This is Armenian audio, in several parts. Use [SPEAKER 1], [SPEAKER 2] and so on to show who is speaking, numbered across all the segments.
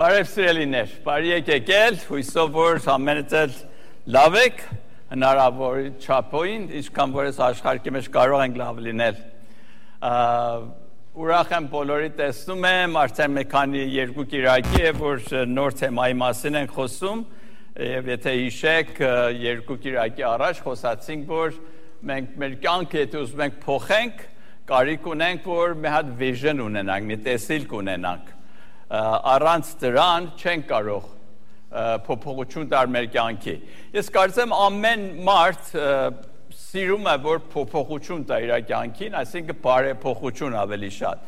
[SPEAKER 1] Բարև սիրելիներ, բարի եկել, հույսով որ ամենից էլ լավ եք, հնարավոր չափոյին, ինչքան որ ես աշխարհի մեջ կարող ենք լավ լինել։ Ուրախ եմ բոլորի տեսնում եմ, արդեն մի քանի երկու կիրակի է, որ նոր թեմայի մասին ենք խոսում, եւ եթե հիշեք, երկու կիրակի առաջ խոսացինք, որ մենք մեր կյանքը եթե ուզում ենք փոխենք, կարիք ունենք, որ մի հատ vision ունենանք, մի տեսիլք ունենանք։ Առանց դրան չենք կարող փոփոխություն տալ մեր կյանքի։ Ես կարծեմ ամեն մարդ սիրում է որ փոփոխություն տա իր կյանքին, այսինքն բարեփոխություն ավելի շատ։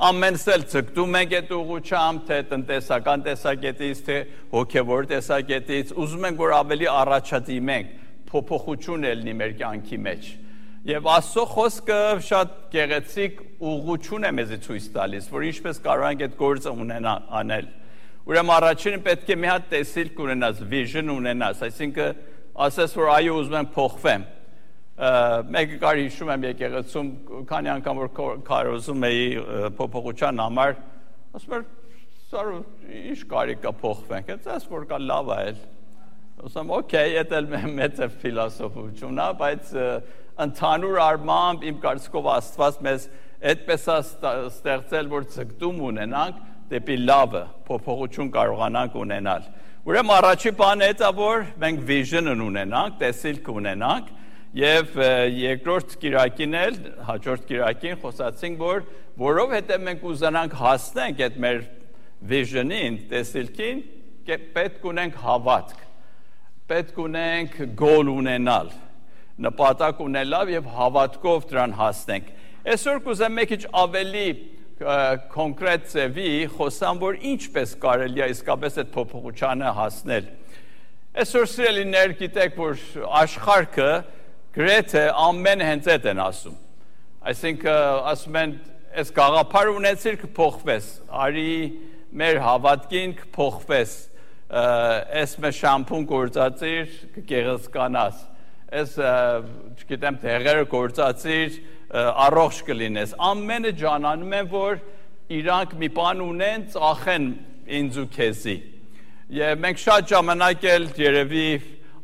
[SPEAKER 1] Ամենս էլ ցկտում ենք այդ ուղղությամբ, թե տնտեսական տեսակետից, թե հոգևոր տեսակետից, ուզում ենք որ ավելի առաջադիմենք, փոփոխություն ելնի մեր կյանքի մեջ։ Եվ Աստծո խոսքը շատ գեղեցիկ ուղղություն է մեզ ցույց տալիս, որ ինչպես կարող ենք այդ գործը անել։ Ուրեմն առաջինը պետք է մի հատ տեսիլք ունենաս, vision ունենաս, այսինքն ասես որ այո ուզում եմ փոխվեմ։ Մեկը կար հիշում եմ եկեղեցում, քանի անգամ որ քարոզում էի փոփոխության համար, ասում էր սարու ինչ կարիք կա փոխվենք, այս որ կա լավ է էլ։ Ասում օքեյ, դա մեծ է ֆիլոսոֆիություն է, բայց ընդհանուր առմամբ իմ կարծիքով Աստված մեզ այդպես է ստեղծել, որ ցկտում ունենանք դեպի լավը, փոփոխություն կարողանանք ունենալ։ Ուրեմն առաջի բանը դա որ մենք vision ունենանք, տեսիլք ունենանք, եւ երկրորդ կիրակին էլ, հաջորդ կիրակին խոսացինք, որ որովհետեւ մենք ուզենանք հասնենք այդ մեր vision-ին, տեսիլքին, պետք ունենք հավատք, պետք ունենք goal ունենալ, նպատակ ունենալ եւ հավատքով դրան հասնենք։ Այսօր կուզեմ մի քիչ ավելի կոնկրետ ձևի խոսամ, որ ինչպես կարելի է իսկապես այդ փոփոխությանը հասնել։ Այսօր սիրելիներ գիտեք, որ աշխարհը գրեթե ամեն հենց այդ են ասում։ Այսինքն ասում են, այս գաղափար ունեցիր կփոխվես, արի մեր հավատքին կփոխվես, այս մեր շամփուն գործածիր կգեղեցկանաս, այս չգիտեմ դեղերը գործածիր առողջ կլինես։ Ամենը ջանանում են, որ իրանք մի բան ունեն, ծախեն ինձ ու քեզի։ Եվ մենք շատ ժամանակ էլ երևի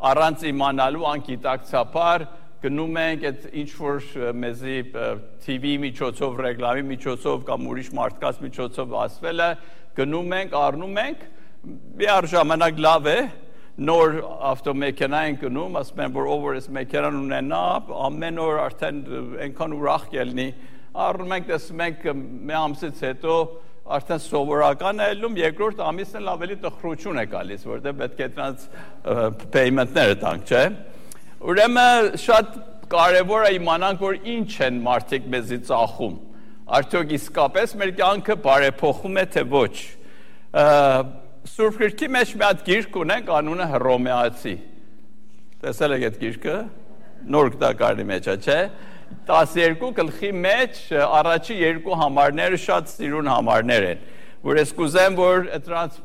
[SPEAKER 1] առանց իմանալու անկիտակցաբար գնում ենք այդ ինչ որ մեզի TV միջոցով, ռեկլամի միջոցով կամ ուրիշ մարդկանց միջոցով ասվել է, գնում ենք, առնում ենք, մի ժամանակ լավ է, նոր ավտոմեքենա են գնում, ասում են որ ով որ այս մեքենան ունենա, ամեն օր արդեն այնքան ուրախ կլինի, առնում ենք, տեսնում ենք մի ամսից հետո արդեն սովորական է ելնում, երկրորդ ամիսն էլ ավելի տխրություն է գալիս, որտեղ պետք է դրանց payment-ները տանք, չէ՞։ Ուրեմն շատ կարևոր է իմանանք, որ ինչ են մարդիկ մեզի ծախում։ Արդյոք իսկապես մեր կյանքը բարեփոխում է, թե ոչ։ Սուրբ Գրքի մեջ մի հատ գիրք ունենք, անունը Հռոմեացի։ Տեսել եք այդ գիրքը։ Նոր գտակարանի մեջ է, չէ՞։ 12 գլխի մեջ առաջի երկու համարները շատ սիրուն համարներ են, որ ես կուզեմ, որ դրանց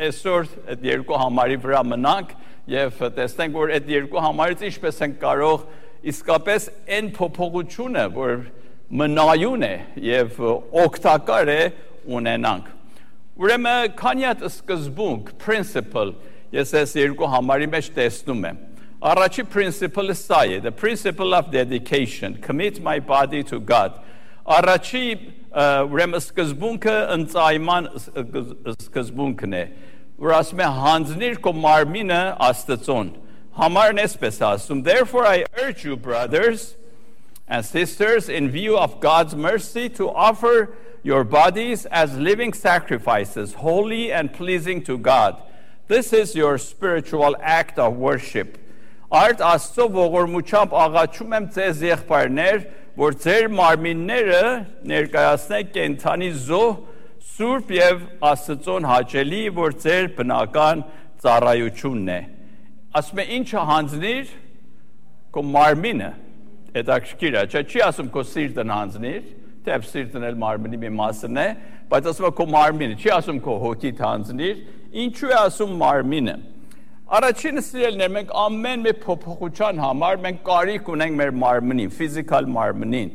[SPEAKER 1] այսօր այդ երկու համարի վրա մնանք եւ տեսնենք, որ այդ երկու համարից ինչպես են կարող իսկապես այն փոփոխությունը, որ մնայուն է եւ օգտակար է ունենանք։ Ուրեմն քանի հատ սկզբունք, principle, ես այս երկու համարի մեջ տեսնում եմ։ Առաջի principle-ը սա է, the principle of dedication, commit my body to God։ Առաջի ուրեմն սկզբունքը ընծայման սկզբունքն է, որ ասում է հանձնիր քո մարմինը Աստծուն։ Համարն էսպես ասում, therefore I urge you brothers and sisters in view of God's mercy to offer your bodies as living sacrifices, holy and pleasing to God. This is your spiritual act of worship. Արդ Աստծո ողորմությամբ աղաչում եմ ձեզ եղբայրներ, որ ձեր մարմինները ներկայացնեք կենդանի զոհ, սուրբ եւ Աստծուն հաճելի, որ ձեր բնական ծառայությունն է։ Ասում է ինչը հանձնիր քո մարմինը, հետաքրքիր է, չի ասում քո սիրտն հանձնիր, թեպ սիրտն էլ մարմինի մի մասն է, բայց ասում է քո մարմինը, չի ասում քո հոգիդ հանձնիր, ինչու է ասում մարմինը։ Առաջինը սիրելիներ, մենք ամեն մի փոփոխության համար մենք կարիք ունենք մեր մարմնին, ֆիզիկալ մարմնին,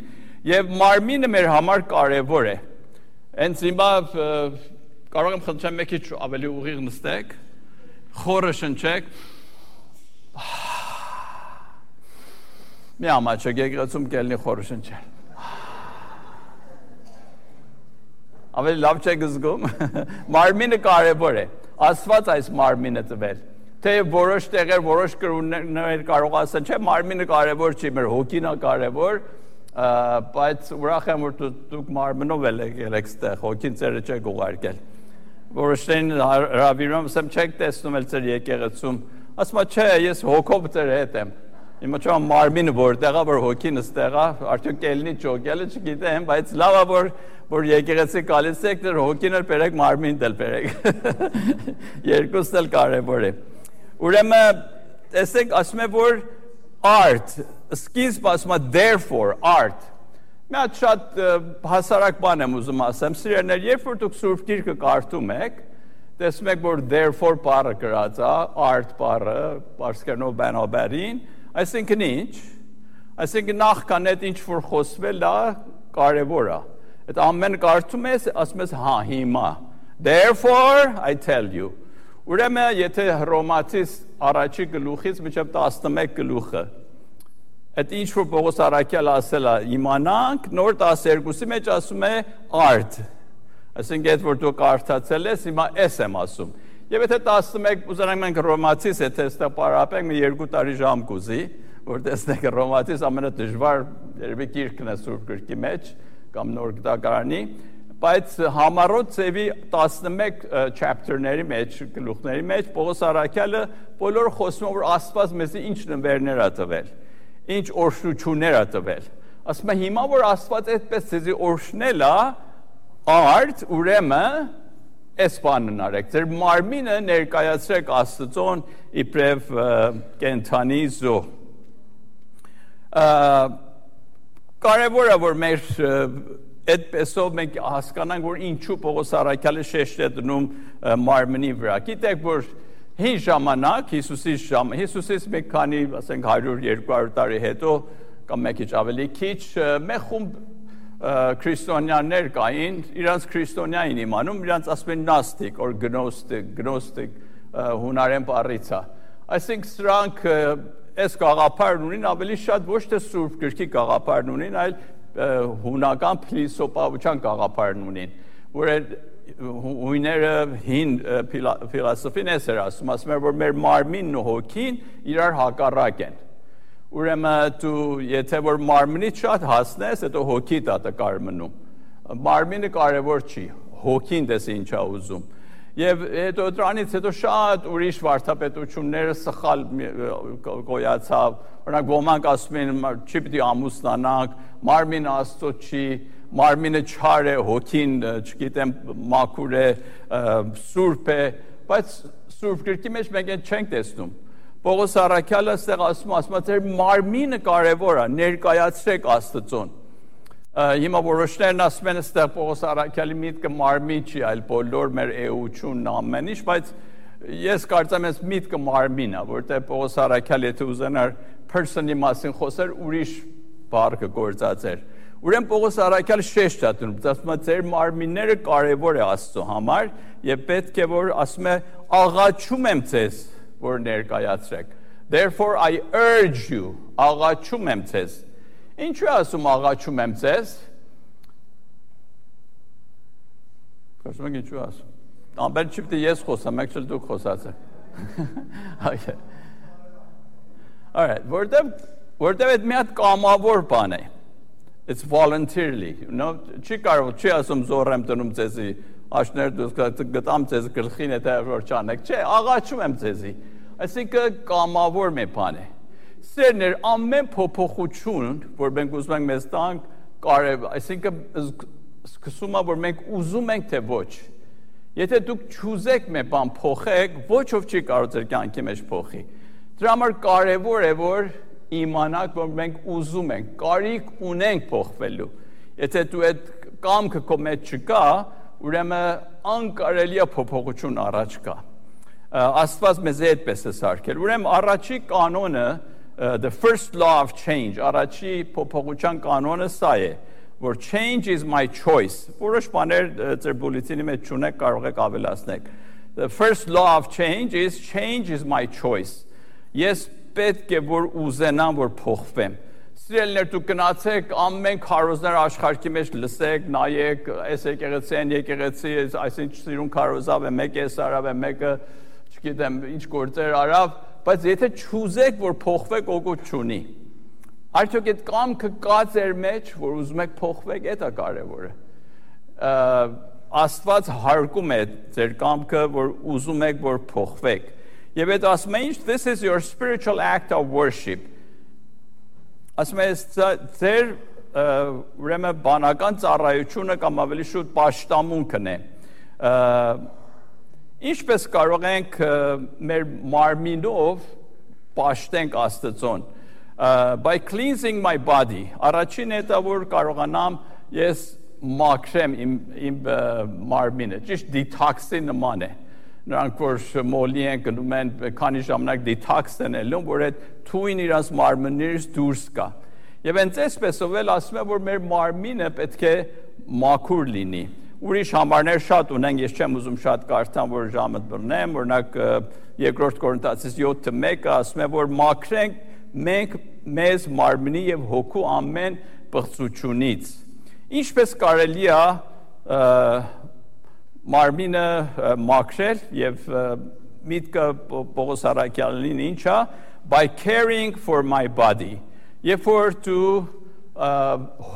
[SPEAKER 1] եւ մարմինը մեր համար կարեւոր է։ Հենց հիմա կարող եմ խնդրեմ մի քիչ ավելի ուղիղ նստեք, խորը շնչեք։ Մի ամաչեք եկեղեցում կելնի խորը շնչել։ Ավելի լավ չեք զգում։ Մարմինը կարևոր է։ Աստված այս մարմինը տվել։ Թե որոշ տեղեր, որոշ կրոններ կարող ասեն, չէ, մարմինը կարևոր չի, մեր հոգին է կարևոր, բայց ուրախ եմ, որ դուք մարմնով եկել եք ստեղ, հոգին ծերը չեք ուղարկել։ Որոշներին հրավիրում, ասեմ, չեք տեսնում էլ ծեր եկեղեցում, ասում է, չէ, ես հոգով ծեր հետ եմ։ Հիմա չեմ մարմինը որտեղ է, որ հոգին ստեղ է, արդյոք կելնի ճոգելը չգիտեմ, բայց լավ է, որ եկեղեցի գալիս եք, դեռ հոգին էլ բերեք, մարմինն էլ բերեք։ Երկուսն էլ կարևոր է։ Ուրեմն, տեսեք, ասում է, որ art, սկիզբ ասում է therefore, art։ Մի հատ շատ հասարակ բան եմ ուզում ասեմ, սիրելիներ, երբ որ դուք Սուրբ Գիրքը կարդում եք, տեսնում եք, որ therefore բառը գրած է, art բառը, պարսկերենով բանաբարին, այսինքն ինչ, այսինքն նախքան այդ ինչ որ խոսվել է, կարևոր է։ Այդ ամեն կարդում ես, ասում ես, հա, հիմա։ Therefore, I tell you։ Ուրեմն, եթե Հռոմացիս առաջի գլուխից մինչև 11 գլուխը, այդ ինչ որ Պողոս առաքյալը ասել է, իմանանք, նոր 12-ի մեջ ասում է art։ Այսինքն, այդ որ դու կարդացել ես, հիմա ես եմ ասում։ Եվ եթե 11 ուզենանք մենք Հռոմացիս, եթե ստեղ պարապենք, մի 2 տարի ժամ կուզի, որ տեսնենք Հռոմացիս ամենադժվար երևի գիրքն է Սուրբ Գրքի մեջ, կամ նոր գտակարանի, բայց համառոտ ծևի 11 chapter-ների մեջ, գլուխների մեջ, Պողոս առաքյալը բոլորը խոսում որ Աստված մեզի ինչ նվերներ է տվել, ինչ օրհնություններ է տվել։ Ասում է հիմա որ Աստված այդպես ձեզի օրհնել է, art, ուրեմն այս բանն արեք, ձեր մարմինը ներկայացրեք Աստծուն իբրև կենդանի զոհ։ Կարևոր է որ մեր այդպեսով մենք հասկանանք, որ ինչու Պողոս առաքյալը շեշտ է դնում մարմնի վրա։ Գիտեք, որ հին ժամանակ Հիսուսից մի քանի, ասենք 100-200 տարի հետո կամ մի քիչ ավելի քիչ, մի խումբ քրիստոնյաներ կային, իրանց քրիստոնյա էին իմանում, իրանց ասում են նաստիկ, or գնոստիկ հունարեն բառից է։ Այսինքն սրանք այս գաղափարն ունին, ավելի շատ ոչ թե Սուրբ Գրքի գաղափարն ունին, այլ հունական փիլիսոփայության գաղափարն ունին, որ հույները հին ֆիլոսոֆին էր ասում էր, որ մեր մարմինն ու հոգին իրար հակառակ են։ Ուրեմն դու եթե որ մարմնից շատ հասնես, հետո հոգիդ է կարմնում։ Մարմինը կարևոր չի, հոգին դες ինչ է ուզում։ Եվ հետո դրանից հետո շատ ուրիշ վարդապետությունները սխալ գոյացավ, օրինակ ոմանք ասում են չի պիտի ամուսնանանք, մարմինը Աստծո չի, մարմինը չար է, հոգին, չգիտեմ, մաքուր է, սուրբ է, բայց Սուրբ Գրքի մեջ մենք այն չենք տեսնում։ Պողոս առաքյալը այստեղ ասում է, ձեր մարմինը կարևոր է, ներկայացրեք Աստծուն։ Հիմա որոշներն ասում են այստեղ Պողոս առաքյալի միտքը մարմին չի, այլ բոլոր մեր էությունն ամեն ինչ, բայց ես կարծեմ ես միտքը մարմին է, որտեղ Պողոս առաքյալը եթե ուզենար person-ի մասին խոսեր, ուրիշ բառ կգործածեր։ Ուրեմն Պողոս առաքյալը շեշտ է դնում, ասում է ձեր մարմինները կարևոր է Աստծո համար եւ պետք է որ ասում է աղաչում եմ ձեզ, որ ներկայացրեք։ Therefore I urge you, աղաչում եմ ձեզ։ Ինչու ասում աղաչում եմ ձեզ։ Կարծում եք ինչու ասում։ Ամեն չի պիտի ես խոսամ, եք չլ դուք խոսացեք։ Okay. All right, որտեվ այդ մի հատ կամավոր բան է։ It's voluntarily, you know, չի կարող, չի ասում զոր եմ տնում ձեզի, աշներ դուք գտամ ձեզ գլխին եթե որ չանեք, չէ, աղաչում եմ ձեզի։ Այսինքն կամավոր մի բան է։ Սերներ ամեն փոփոխություն, որ մենք ուզում ենք մեզ տանք, կարևոր, այսինքն սկսում է որ մենք ուզում ենք թե ոչ։ Եթե դուք չուզեք մի բան փոխեք, ոչով չի կարող ձեր կյանքի մեջ փոխի։ Դրա համար կարևոր է որ իմանաք, որ մենք ուզում ենք, կարիք ունենք փոխվելու։ Եթե դու այդ կամքը քո մեջ չկա, ուրեմն անկարելի է փոփոխություն առաջ գա։ Աստված մեզ այդպես է սարքել։ Ուրեմն առաջի կանոնը, the first law of change, առաջի փոփոխության կանոնը սա է, որ change is my choice, որոշ բաներ ձեր բուլետինի մեջ չունեք, կարող եք ավելացնել։ The first law of change is my choice. Ես պետք է որ ուզենամ, որ փոխվեմ։ Սիրելիներ, դուք գնացեք ամեն քարոզներ աշխարհի մեջ լսեք, նայեք, այս եկեղեցի, այսինչ սիրուն քարոզավ է, մեկը սարավ է, մեկը, չգիտեմ, ինչ գործեր արավ, բայց եթե չուզեք, որ փոխվեք, օգուտ չունի։ Արդյոք այդ կամքը կա ձեր մեջ, որ ուզում եք փոխվեք, դա կարևորը։ Աստված հարգում է ձեր կամքը, որ ուզում եք, որ փոխվեք։ Եվ այդ ասում է ինչ, this is your spiritual act of worship։ Ասում է ձեր ուրեմն բանական ծառայությունը կամ ավելի շուտ պաշտամունքն է։ Ինչպես կարող ենք մեր մարմինով պաշտենք Աստծուն։ By cleansing my body, առաջին հետը որ կարողանամ ես մաքրեմ իմ մարմինը, ճիշտ դիթաքսի նման է։ Նրանք որ մոլի են գնում են քանի ժամանակ դիթաքս են ելնում, որ այդ թույն իրաց մարմիններից դուրս գա։ Եվ հենց այսպեսով էլ ասում է, որ մեր մարմինը պետք է մաքուր լինի։ Ուրիշ համարներ շատ ունենք, ես չեմ ուզում շատ կարդամ, որ ժամը բռնեմ, օրինակ երկրորդ Կորինթացիս 7:1 ասում է, որ մաքրենք մենք մեզ մարմնի եւ հոգու ամեն պղծությունից։ Ինչպես կարելի է մարմինը մաքրել եւ միտքը Պողոս Արաքյալին ինչա by caring for my body։ Երբ որ դու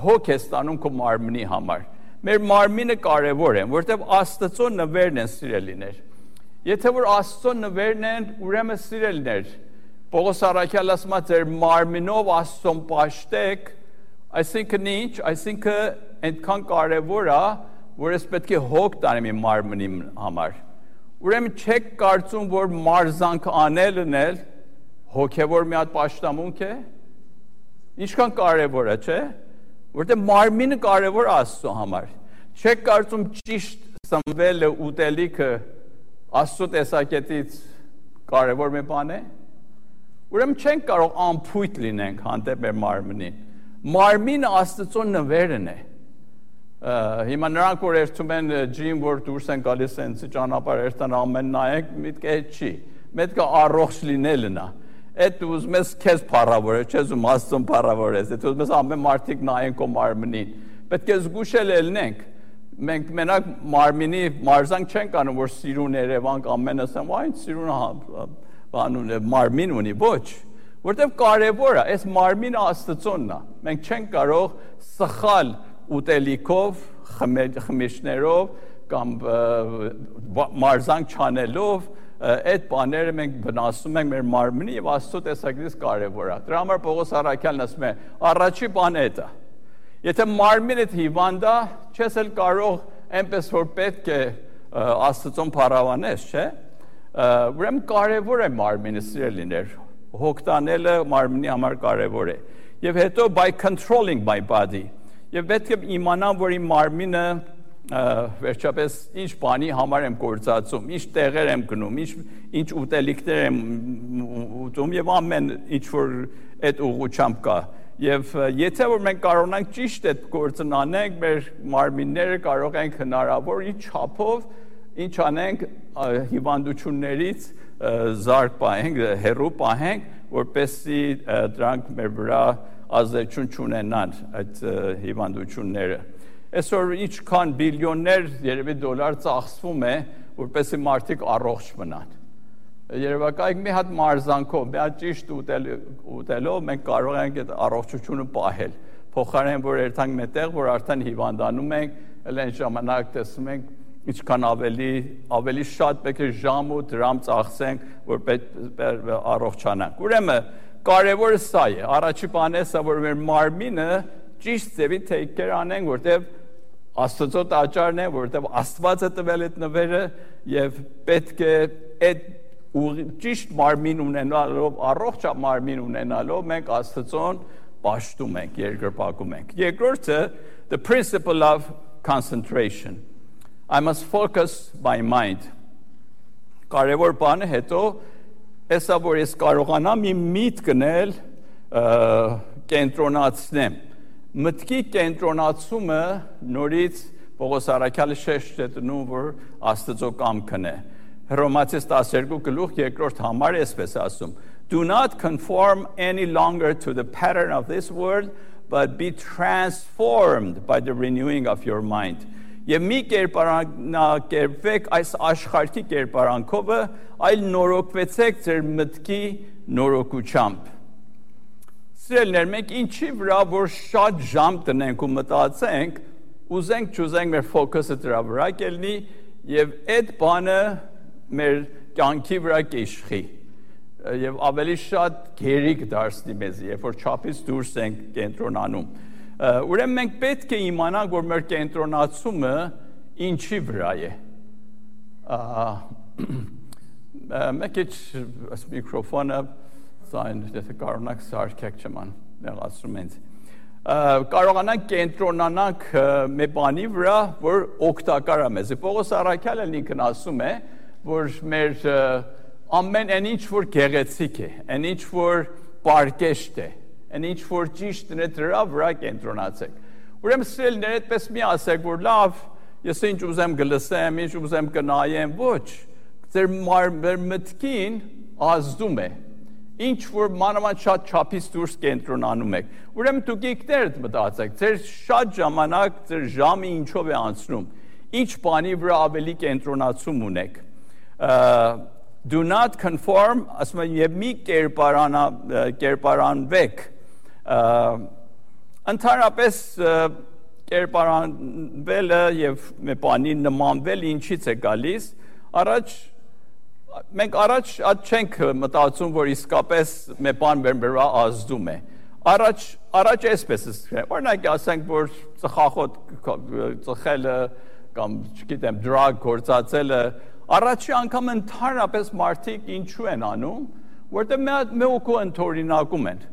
[SPEAKER 1] հոգ ես ստանում քո մարմնի համար։ Մեր մարմինը կարևոր է, որտեղ Աստծո նվերն են սիրելիներ։ Եթե որ Աստծո նվերն են, ուրեմն սիրելիներ, Պողոս Արաքյալը ասում է ձեր մարմինով Աստծուն պաշտեք, այսինքն ինչ, այսինքն այնքան կարևոր է, որ ես պետք է հոգ տանեմ իմ մարմնի համար։ Ուրեմն չեք կարծում, որ մարզանք անելն էլ հոգևոր մի հատ պաշտամունք է։ Ինչքան կարևոր է, չէ՞։ Որտեղ մարմինը կարևոր է Աստծո համար։ Չեք կարծում ճիշտ սնվելը, ուտելիքը Աստծո տեսակետից կարևոր մի բան է։ Ուրեմն չենք կարող անփույթ լինենք հանդեպ մեր մարմնին։ Մարմինը Աստծո նվերն է։ Հիմա նրանք որ երթում են ջիմ, որ դուրս են գալիս այնց ճանապարհ երթան ամեն նայեք, միտքը այդ չի։ Մետքը առողջ լինելն է։ Այդ ուզում ես քեզ փառավորել, չես ուզում Աստծուն փառավորես։ Այդ ուզում ես ամեն մարդիկ նայեն քո մարմնին։ Պետք է զգուշել ելնենք։ Մենք մենակ մարմինի մարզանք չենք անում, որ սիրուն Երևան ամեն ասեմ, այն սիրուն բանուն մարմին ունի, ոչ, որտեղ կարևոր է, այս մարմինը Աստծոնն է։ Մենք չենք կարող սխալ ուտելիքով, խմիչքներով կամ մարզանք չանելով այդ բաները մենք վնասում ենք մեր մարմնի եւ Աստծո տեսակետից կարևոր է։ Դրա համար Պողոս Արաքյալն ասում է, առաջի բանը դա է։ Եթե մարմինդ հիվանդ է, չես էլ կարող այնպես որ պետք է Աստծուն փառավանես, չէ՞։ Ուրեմն կարևոր է մարմինը սիրելիներ, հոգ տանելը մարմնի համար կարևոր է։ Եվ հետո by controlling my body։ Եվ պետք է իմանամ, որ իմ մարմինը վերջապես ինչ բանի համար եմ գործածում, ինչ տեղեր եմ գնում, ինչ ուտելիքներ եմ ուտում եւ ամեն ինչ որ այդ ուղղությամբ կա։ Եվ եթե որ մենք կարողանանք ճիշտ այդ գործն անենք, մեր մարմինները կարող ենք հնարավոր ինչ չափով ինչ անենք հիվանդություններից զարկ պահենք, հեռու պահենք, որպեսզի դրանք մեր վրա ազդեցություն չունենան այդ հիվանդությունները։ Այսօր ինչքան բիլիոններ երևի դոլար ծախսվում է, որպեսզի մարդիկ առողջ մնան։ Երևակայք մի հատ մարզանքով, մի հատ ճիշտ ուտելով մենք կարող ենք այդ առողջությունը պահել։ Փոխարեն որ երթանք մետեղ, որ արդեն հիվանդանում ենք, էլ այն ժամանակ տեսնում ենք ինչքան ավելի շատ պետք է ժամ ու դրամ ծախսենք, որ առողջանանք։ Ուրեմն կարևորը սա է, առաջի բանը սա, որ մեր մարմինը ճիշտ ձևի take care անենք, որտեղ Աստծո տաճարն է, որտեղ Աստված է տվել այդ նվերը եւ պետք է այդ ճիշտ մարմին ունենալով, առողջ մարմին ունենալով մենք Աստծուն պաշտում ենք, երկրպագում ենք։ Երկրորդը, the principle of concentration. I must focus my mind. Կարևոր բանը հետո հեսա որ ես կարողանամ իմ միտքն էլ կենտրոնացնեմ մտքի կենտրոնացումը նորից Պողոս առաքյալը շեշտ է տնում, որ Աստծո կամքն է։ Հռոմացիս 12:2 համար էսպես ասում. Do not conform any longer to the pattern of this world, but be transformed by the renewing of your mind. Եվ մի կերպարանքերվեք այս աշխարհի կերպարանքով, այլ նորոգվեցեք ձեր մտքի նորոգությամբ։ Սիրելիներ, մենք ինչի վրա որ շատ ժամ տնենք ու մտածենք, ուզենք չուզենք մեր ֆոկուսը դրա վրա կելնի եւ այդ բանը մեր կյանքի վրա կիշխի եւ ավելի շատ գերիկ դարձնի մեզ, երբ որ չափից դուրս ենք կենտրոնանում։ Ուրեմն մենք պետք է իմանանք, որ մեր կենտրոնացումը ինչի վրա է։ Մեկ էս միկրոֆոնը Сайн եթե կարողանաք սարքեք չման նեղացնում ենք կարողանանք կենտրոնանանք մի բանի վրա որ օգտակար է մեզ Պողոս առաքյալը ինքն ասում է որ մեր ամեն այն ինչ որ գեղեցիկ է այն ինչ որ պարկեշտ է այն ինչ որ ճիշտ է դրա վրա կենտրոնացեք ուրեմն սիրելիներ այդպես մի ասեք որ լավ ես ինչ ուզեմ գլսեմ ինչ ուզեմ կնայեմ ոչ ձեր մտքին ազդում է Ինչ որ մանավանդ շատ չափից դուրս կենտրոնանում եք։ Ուրեմն դուք եկներ մտածեք, ձեր շատ ժամանակ, ձեր ժամը ինչով է անցնում։ Ինչ բանի վրա ավելի կենտրոնացում ունեք։ Do not conform, ասում եմ, եւ մի կերպարանվեք։ Ընդհանրապես կերպարանվելը եւ մի բանի նմանվել ինչից է գալիս։ Մենք առաջ չենք մտածում, որ իսկապես մի բան մեր վրա ազդում է։ Առաջ էսպես է։ Օրինակ ասենք, որ ծխախոտ ծխելը կամ չգիտեմ drug գործածելը առաջի անգամ ընդհանրապես մարդիկ ինչու են անում, որտեղ մի օկու ընդօրինակում են։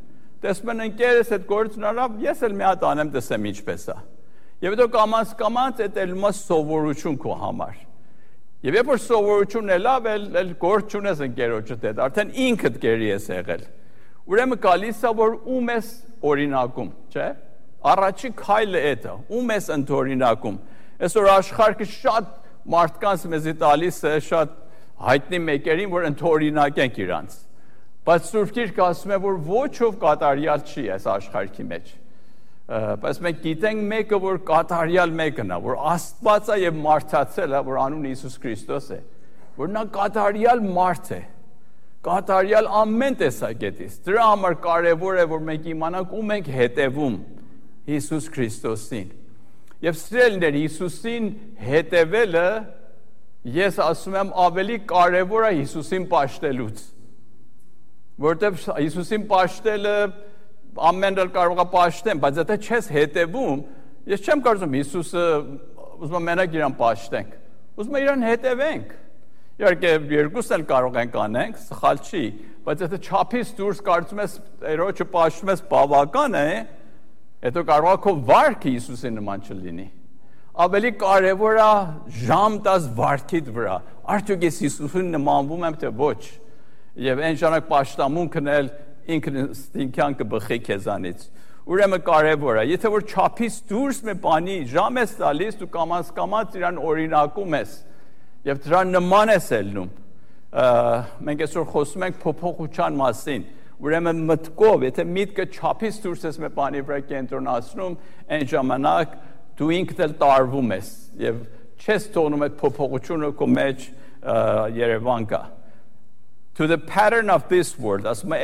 [SPEAKER 1] Տեսնում են ընկերս այդ գործն արավ, ես էլ մի հատ անեմ, տեսեմ ինչպես է։ Եվ հետո կամաց այդ ելումա սովորություն քո համար։ Եվ երբ որ սովորությունն է լավ, էլ գործ չունես ընկերոջդ հետ, արդեն ինքդ գերի ես եղել։ Ուրեմն գալիս է որ ում ես օրինակում, չէ՞։ Առաջի քայլը դա, ում ես ընդօրինակում։ Այսօր աշխարհը շատ մարդկանց մեզի տալիս է շատ հայտնի մեկերին, որ ընդօրինակենք իրանց։ Բայց Սուրբ Գիրքը ասում է, որ ոչով կատարյալ չի այս աշխարհի մեջ։ Բայց մենք գիտենք մեկը, որ կատարյալ մեկն է, որ Աստված է եւ մարդացել է, որ անունը Հիսուս Քրիստոս է, որ նա կատարյալ մարդ է, կատարյալ ամեն տեսակետից։ Դրա համար կարևոր է, որ մենք իմանանք ում ենք հետևում Հիսուս Քրիստոսին։ Եվ սիրելիներ, Հիսուսին հետևելը, ես ասում եմ, ավելի կարևոր է Հիսուսին պաշտելուց։ Որտեղ Հիսուսին պաշտելը ամեն դեպքում կարող է պաշտեն, բայց եթե չես հետևում, ես չեմ կարծում Հիսուսը ուզում է մենակ իրան պաշտենք, ուզում է իրան հետևենք։ Իհարկե երկուսն էլ կարող ենք անենք, սխալ չի, բայց եթե չափից դուրս կարծում ես Տերոջը պաշտում ես բավական է, հետո կարող է քո վարքը Հիսուսի նման չլինի։ Ավելի կարևոր է ժամ տաս վարքիդ վրա։ Արդյոք ես Հիսուսին նմանվում եմ թե ոչ։ Եվ այն ժամանակ պաշտամունքն էլ ինքնին կբխի քեզանից։ Ուրեմն կարևոր է, եթե որ չափից դուրս մի բանի ժամ ես տալիս, դու կամաց իրան օրինակում ես եւ դրա նման ես ելնում։ Մենք այսօր խոսում ենք փոփոխության մասին։ Ուրեմն մտքով, եթե միտքը չափից դուրս ես մի բանի վրա կենտրոնացնում, այն ժամանակ դու ինքդ էլ տարվում ես եւ չես թողնում այդ փոփոխությունը քո մեջ երևան գա։ To the pattern of this world, ասում է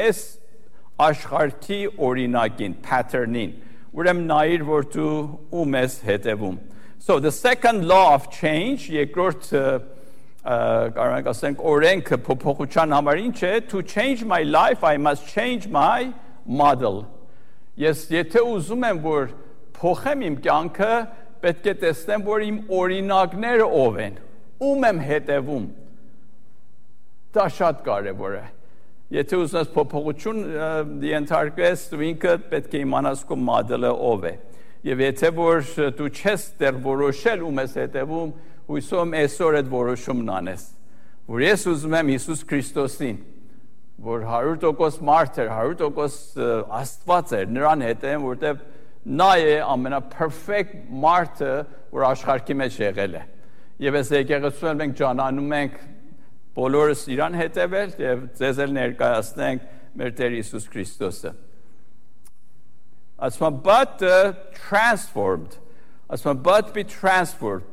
[SPEAKER 1] աշխարհի օրինակին, pattern-ին, ուրեմն նայիր, որ դու ում ես հետևում։ So the second law of change, երկրորդ կարող ենք ասենք օրենքը փոփոխության համար ինչ է, to change my life, I must change my model։ Ես եթե ուզում եմ, որ փոխեմ իմ կյանքը, պետք է տեսնեմ, որ իմ օրինակները ով են, ում եմ հետևում։ Դա շատ կարևոր է։ Եթե ուզում ես փոփոխություն ենթարկես, դու ինքդ պետք է իմանաս քո մոդելը ով է։ Եվ եթե որ դու չես դեռ որոշել ում ես հետևում, հույսով եմ այսօր այդ որոշումն անես, որ ես ուզում եմ Հիսուս Քրիստոսին, որ 100% մարդ էր, 100% Աստված էր, նրան հետևեմ, որտեղ նա է ամենափերֆեկտ մարդը, որ աշխարհի մեջ եղել է։ Եվ այս եկեղեցում մենք ճանաչում ենք բոլորս իրան հետևել եւ ձեզ էլ ներկայացնենք մեր Տեր Հիսուս Քրիստոսը։ Ասում but transformed, ասում but be transformed,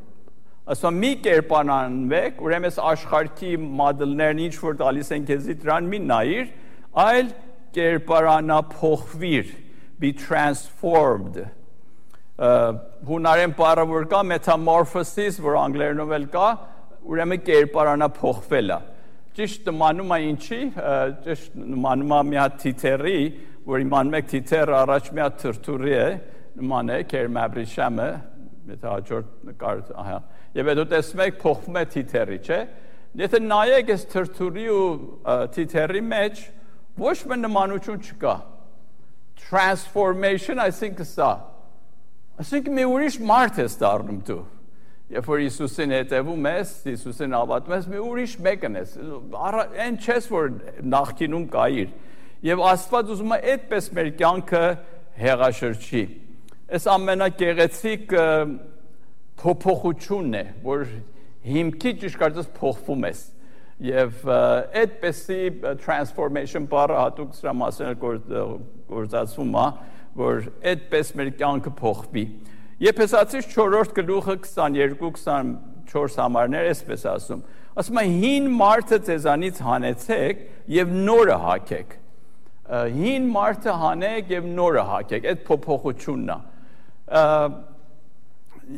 [SPEAKER 1] ասում մի կերպարանվեք, ուրեմն աշխարհի մոդելներն ինչ որ տալիս են քեզի դրան մի նայիր, այլ կերպարանափոխվիր, be transformed։ Հունարեն բառը որ կա metamorphosis, որ անգլերենով էլ կա, ուրեմն կերպարանափոխվելը։ Ճիշտ նմանում է ինչի, ճիշտ նմանում է մի հատ թիթեռի, որ իմանում եք թիթեռը առաջ մի հատ թրթուրի է, նման է կերմաբրիշամը, եթե հաջորդ նկար, ահա։ Եվ հետո տեսնում եք փոխվում է թիթեռի, չէ՞։ Եթե նայեք այս թրթուրի ու թիթեռի մեջ ոչ մի նմանություն չկա։ Transformation, այսինքն սա։ Այսինքն մի ուրիշ մարդ ես դառնում դու։ Երբ որ Հիսուսին հետևում ես, Հիսուսին հավատում ես, մի ուրիշ մեկն ես։ Այն չես որ նախկինում կայիր։ Եվ Աստված ուզում է այդպես մեր կյանքը հեղաշրջի։ Այս ամենագեղեցիկ փոփոխությունն է, որ հիմքի ճիշտ կարծես փոխվում ես։ Եվ այդպեսի transformation բառը հատուկ սրա մասին գործածվում է, որ այդպես մեր կյանքը փոխվի։ Եփեսացիս 4-րդ գլուխը 22-24 համարներ այսպես ասում։ Ասում է հին մարդը ձեզանից հանեցեք եւ նորը հագեք։ Հին մարդը հանեք եւ նորը հագեք, այդ փոփոխությունն է։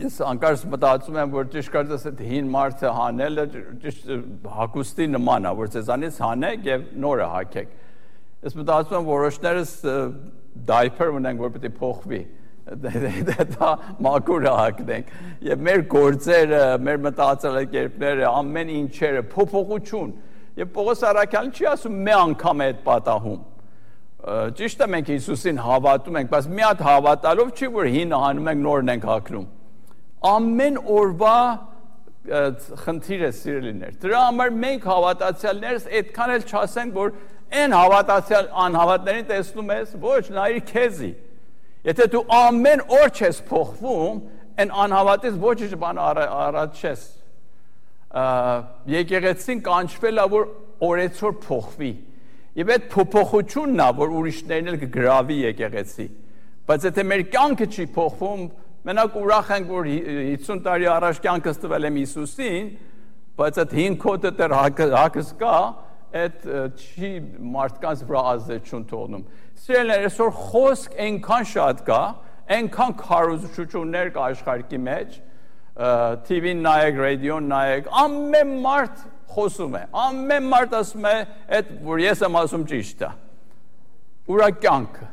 [SPEAKER 1] Ես անկարծ մտածում եմ, որ ճիշտ կարծես այդ հին մարդը հանելը ճիշտ հագուստի նման է, որ ձեզանից հանեք եւ նորը հագեք։ Ես մտածում եմ որոշներս diaper ունենք, որ պետք է փոխվի։ Դա մաքուր հագնենք եւ մեր գործերը, մեր մտածելակերպները, ամեն ինչերը փոփոխություն։ Եվ Պողոս Արաքյալն չի ասում մի անգամ է այդ պատահում։ Ճիշտ է մենք Հիսուսին հավատում ենք, բայց մի հատ հավատալով չի որ հինը հանում ենք նորն ենք հագնում։ Ամեն օրվա խնդիր է սիրելիներ։ Դրա համար մենք հավատացյալներս այդքան էլ չասենք որ այն հավատացյալ անհավատներին տեսնում ես, ոչ, նայիր քեզի։ Եթե դու ամեն օր չես փոխվում, այն անհավատից ոչինչ բան առաջ չես։ Եկեղեցին կանչվել է որ օրեցօր փոխվի։ Եվ այդ փոփոխությունն է, որ ուրիշներն էլ կգրավի եկեղեցի։ Բայց եթե մեր կյանքը չի փոխվում, մենակ ուրախ ենք, որ 50 տարի առաջ կյանքս տվել եմ Հիսուսին, բայց այդ հին կոդը դեռ հակս կա, այդ չի մարդկանց վրա ազդեցություն թողնում։ Սիրելիներ, այսօր խոսք այնքան շատ կա, այնքան քարոզություններ կա աշխարհի մեջ, TV-ն նայեք, ռադիոն նայեք, ամեն մարդ խոսում է, ամեն մարդ ասում է, այդ որ ես եմ ասում ճիշտ է։ Ուրա կյանքը։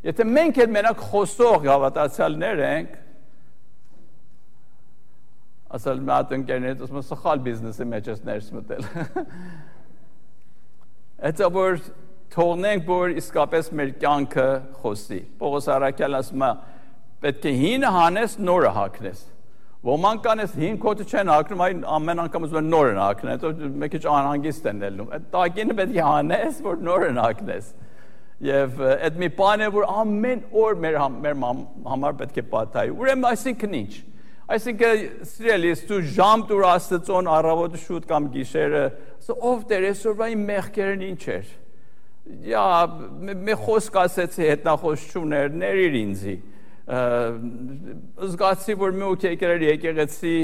[SPEAKER 1] Եթե մենք էլ մենակ խոսող հավատացյալներ ենք, ասել մի հատ ընկերներից ասում սխալ բիզնեսի մեջ ես ներս մտել։ Այդ որ թողնենք, որ իսկապես մեր կյանքը խոսի։ Պողոս Արաքյալն ասում է, պետք է հինը հանես, նորը հագնես։ Ոմանք կան ես հին կոթը չեն հագնում, այն ամեն անգամ ուզում են նորն հագնել, հետո մի քիչ անհանգիստ են ելնում։ Այդ տակինը պետք է հանես, որ նորն հագնես։ Եվ այդ մի բան է, որ ամեն օր մեր համար պետք է պատահի։ Ուրեմն այսինքն ինչ։ Այսինքն սիրելիս դու ժամ դուր Աստծոն առավոտը շուտ կամ գիշերը, ով Տեր այսօրվա իմ մեղքերն ինչ էր։ Յա մի խոսք ասեցի հետնախոսություններ ներիր ինձի։ Զգացի որ մի օքի եկեղեցի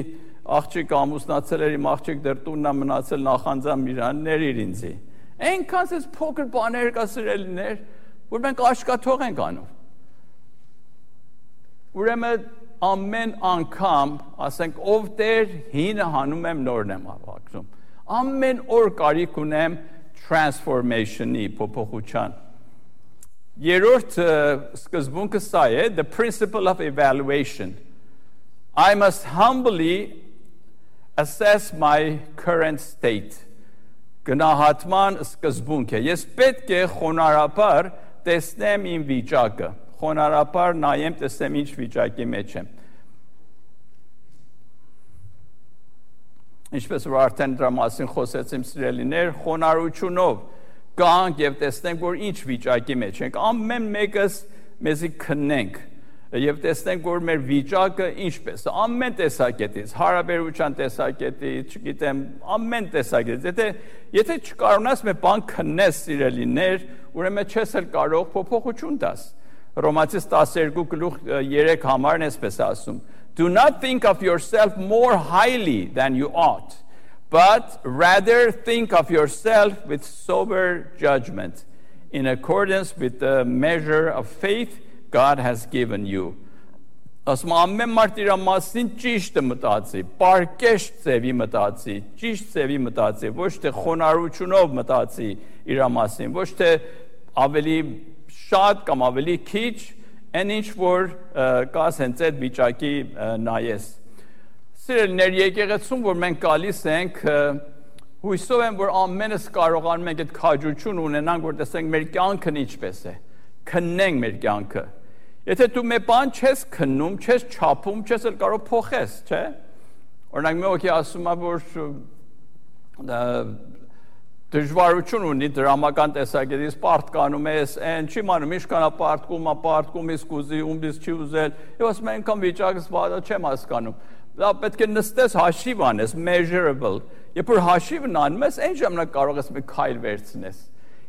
[SPEAKER 1] աղջիկ ամուսնացել էր, իմ աղջիկ դեռ տունն է մնացել նախանձամ իրան ներիր ինձի։ Այնքան էս փոքր բաներ կա սիրելիներ, որ մենք աշկաթող ենք անում։ Ուրեմն ամեն անգամ ասենք ով Տեր հինը հանում եմ նորն եմ հագնում։ Ամեն օր կարիք ունեմ transformation-ի փոփոխության։ Երրորդ սկզբունքը սա է, the principle of evaluation. I must humbly assess my current state. Գնահատման սկզբունք է։ Ես պետք է խոնարհաբար տեսնեմ իմ վիճակը։ Խոնարհաբար նայեմ, տեսնեմ ինչ վիճակի մեջ եմ։ Ինչպես որ արդեն դրա մասին խոսեցիմ սիրելիներ, խոնարհությունով գանք եւ տեսնենք, որ ինչ վիճակի մեջ ենք։ Ամեն մեկս մեզի քննենք, Եվ տեսնենք, որ մեր վիճակը ինչպես է, ամեն տեսակետից, հարաբերության տեսակետից, չգիտեմ, ամեն տեսակետից, եթե չկարողանաս մի բան քննես, սիրելիներ, ուրեմն չես էլ կարող փոփոխություն տաս։ Հռոմացիս 12:3 համարն էսպես ասում. Do not think of yourself more highly than you ought, but rather think of yourself with sober judgment, in accordance with the measure of faith God has given you. Ասում ամեն մարդ իր մասին ճիշտը մտածի, պարկեշտ ձևի մտածի, ճիշտ ձևի մտածի, ոչ թե խոնարհությունով մտածի իր մասին, ոչ թե ավելի շատ կամ ավելի քիչ, այն ինչ որ կաս հենց այդ վիճակի նայես։ Սիրելիներ, եկեղեցում որ մենք գալիս ենք, հույսով եմ որ ամենս կարողանում ենք այդ քաջություն ունենանք, որ տեսնենք մեր կյանքն ինչպես է, քննենք մեր կյանքը։ Եթե դու մի բան չես քննում, չես չափում, չես էլ կարող փոխես, չէ՞։ Օրինակ մեկը ասում է, որ դժվարություն ունի դրամական տեսակետից պարտկանում ես, այն չի մանում, ինչքան է պարտկում, իսկ ուզի, ումից չի ուզել, եւ ասում են անգամ վիճակս վատա չեմ հասկանում։ Դա պետք է նստես հաշիվ անես, measurable։ Երբ որ հաշիվն անում ես, այն ժամանակ կարող ես մի քայլ վերցնես։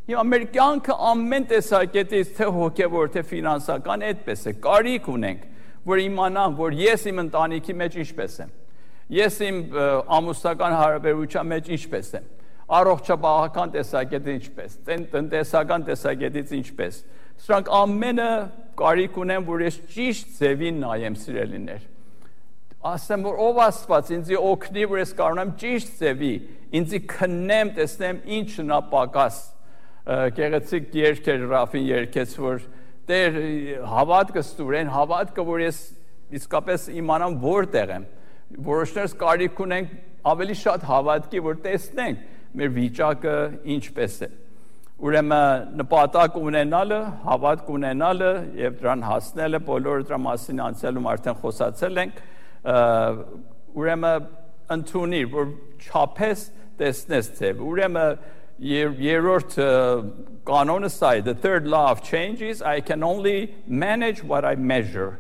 [SPEAKER 1] Հիմա մեր կյանքը ամեն տեսակետից, թե հոգևոր, թե ֆինանսական, այդպես է, կարիք ունենք, որ իմանամ, որ ես իմ ընտանիքի մեջ ինչպես եմ, ես իմ ամուսնական հարաբերության մեջ ինչպես եմ, առողջապահական տեսակետից ինչպես, տնտեսական տեսակետից ինչպես։ Սրանք ամենը կարիք ունեն, որ ես ճիշտ ձևին նայեմ, սիրելիներ։ Ասեմ, որ ով Աստված ինձ օգնի, որ ես կարողանամ ճիշտ ձևի, ինձ քննեմ, տեսնեմ ինչն է պակաս։ Գեղեցիկ երգեր Ռաֆին երգեց, որ Տեր հավատքը ստուրեն, հավատքը, որ ես իսկապես իմանամ որտեղ եմ։ Որոշներս կարիք ունենք ավելի շատ հավատքի, որ տեսնենք մեր վիճակը ինչպես է։ Ուրեմն նպատակ ունենալը, հավատք ունենալը եւ դրան հասնելը, բոլորը դրա մասին անցյալում արդեն խոսացել ենք, ուրեմն ընդունի, որ չափես տեսնես ձև։ Ուրեմն երրորդ կանոնը սա է, the third law of change is I can only manage what I measure։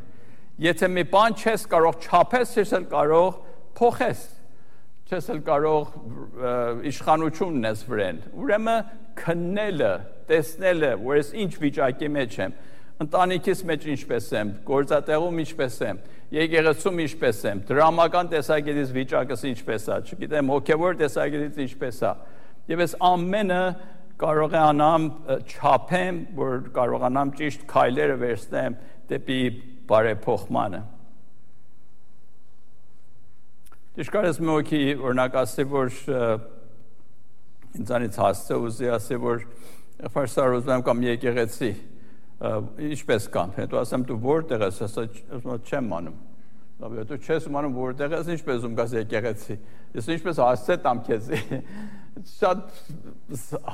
[SPEAKER 1] Եթե մի բան չես կարող չափես, չես էլ կարող փոխես, չես էլ կարող իշխանություն ունես վրան։ Ուրեմն քննելը, տեսնելը, որ ես ինչ վիճակի մեջ եմ, ընտանիքիս մեջ ինչպես եմ, գործատեղում ինչպես եմ, եկեղեցում ինչպես եմ, դրամական տեսակետից վիճակս ինչպես է, չգիտեմ, հոգևոր տեսակետից ինչպես է։ Եվ ես ամենը կարողանամ չափեմ, որ կարողանամ ճիշտ քայլերը վերցնեմ դեպի բարեփոխմանը։ Ճիշտ մեկի օրինակ ասի, որ ինձանից հասցե ուզի ասի, որ ֆարսար ուզում կամ եկեղեցի, ինչպես կամ, հետո ասեմ դու որտեղ ես, ասա չեմ անում։ Դու չես անում որտեղ ես, ինչպես ում գաս եկեղեցի։ Ես ինչպես հասցե տամ քեզ։ Շատ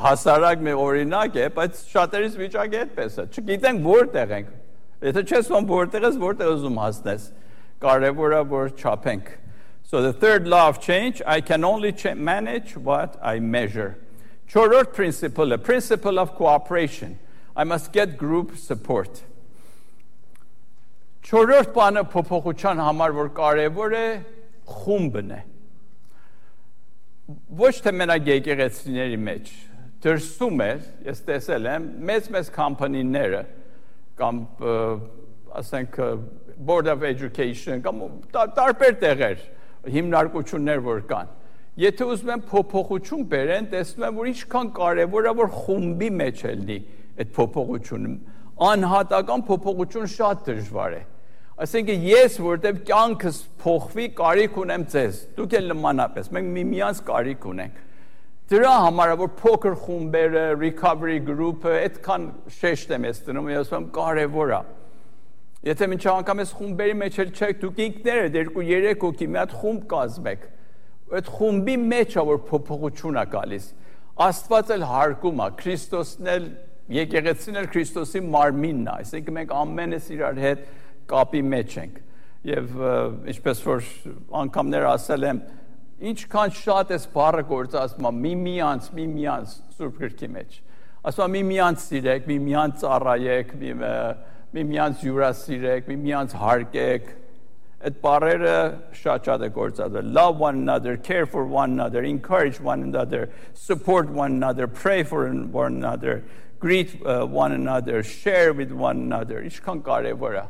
[SPEAKER 1] հասարակ մի օրինակ է, բայց շատերիս վիճակը այդպես է։ Չգիտենք որտեղ ենք։ Եթե չես ում որտեղ ես, որտեղ ուզում հասնես։ Կարևորը որ չափենք։ So the third law of change, I can only manage what I measure. Չորրորդ principle of cooperation. I must get group support. Չորրորդ բանը փոփոխության համար որ կարևոր է, խումբն է։ Ոչ թե մենակ եկեղեցիների մեջ, դրսում է, ես տեսել եմ, մեծ կամպանիները, կամ ասենք Board of Education, կամ տարբեր տեղեր, հիմնարկություններ որ կան։ Եթե ուզում են փոփոխություն բերեն, տեսնում եմ, որ ինչքան կարևոր է, որ խումբի մեջ լինի այդ փոփոխությունը։ Անհատական փոփոխություն շատ դժվար է։ Այսինքն ես որտեղ կյանքս փոխվի, կարիք ունեմ ձեզ։ Դուք էլ նմանապես, մենք միմյանց կարիք ունենք։ Դրա համար որ փոքր խումբերը, recovery group-ը այդքան շեշտ եմ ես դնում, ես ասում կարևոր է։ Եթե մինչ անգամ ես խումբերի մեջ էլ չեք, դուք ինքներդ 2-3 հոգի մի հատ խումբ կազմեք։ Այդ խումբի մեջ է որ փոփոխություն է գալիս։ Աստված էլ հարգում է, Քրիստոսն էլ, եկեղեցին էլ Քրիստոսի մարմինն է, այսինքն մենք ամենս իրար հետ կապի մեջ ենք։ Եվ ինչպես որ անգամներ ասել եմ, ինչքան շատ էս բառը գործածում է միմյանց Սուրբ Գրքի մեջ։ Ասում է միմյանց սիրեք, միմյանց ծառայեք, միմյանց հյուրասիրեք, միմյանց հարգեք։ Այդ բառերը շատ է գործածվել։ Love one another, care for one another, encourage one another, support one another, pray for one another, greet one another, share with one another. Ինչքան կարևոր է։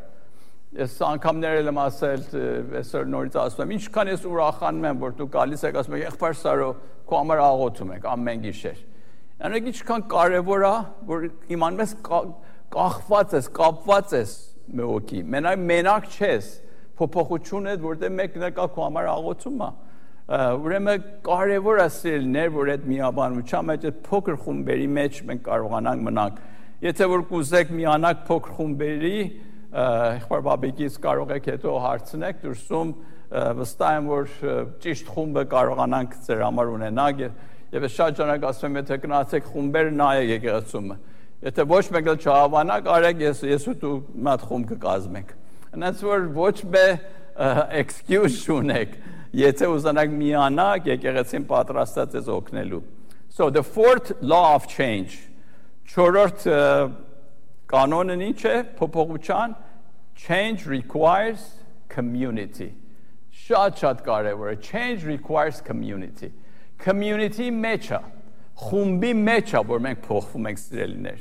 [SPEAKER 1] Ես անգամներ եմ ասել, այսօր նորից ասում եմ, ինչքան ես ուրախանում եմ, որ դու գալիս եք, ասում եք, եղբայր Սարո, քո համար աղոթում ենք ամեն գիշեր։ Այնինչ ինչքան կարևոր է, որ իմանում ես կախված ես, կապված ես մեկի, մենակ չես, փոփոխություն է, որտեղ մեկն է կա քո համար աղոթում է։ Ուրեմն կարևոր է սիրելիներ, որ այդ միաբանության մեջ, այդ փոքր խումբերի մեջ մենք կարողանանք մնանք։ Եթե որ կուզեք միանալ փոքր խումբերի, եղբայր Բաբիկից կարող եք հետո հարցնեք դուրսում, վստահ եմ, որ ճիշտ խումբը կարողանանք ձեր համար ունենալ եւ ես շատ ժամանակ ասում եմ, եթե գնացեք խումբեր նայեք եկեղեցումը։ Եթե ոչ մեկ էլ չհավանաք, արեք ես ու դու մի հատ խումբ կկազմենք։ Այնց որ ոչ մի excuse չունեք, եթե ուզանաք միանալ, եկեղեցին պատրաստած է օգնելու։ So the fourth law of change. Չորրորդ կանոնն ինչ է փոփոխության? Change requires community. Շատ կարևոր է։ Change requires community. Community մեջ է, խումբի մեջ է, որ մենք փոխվում ենք սիրելիներ։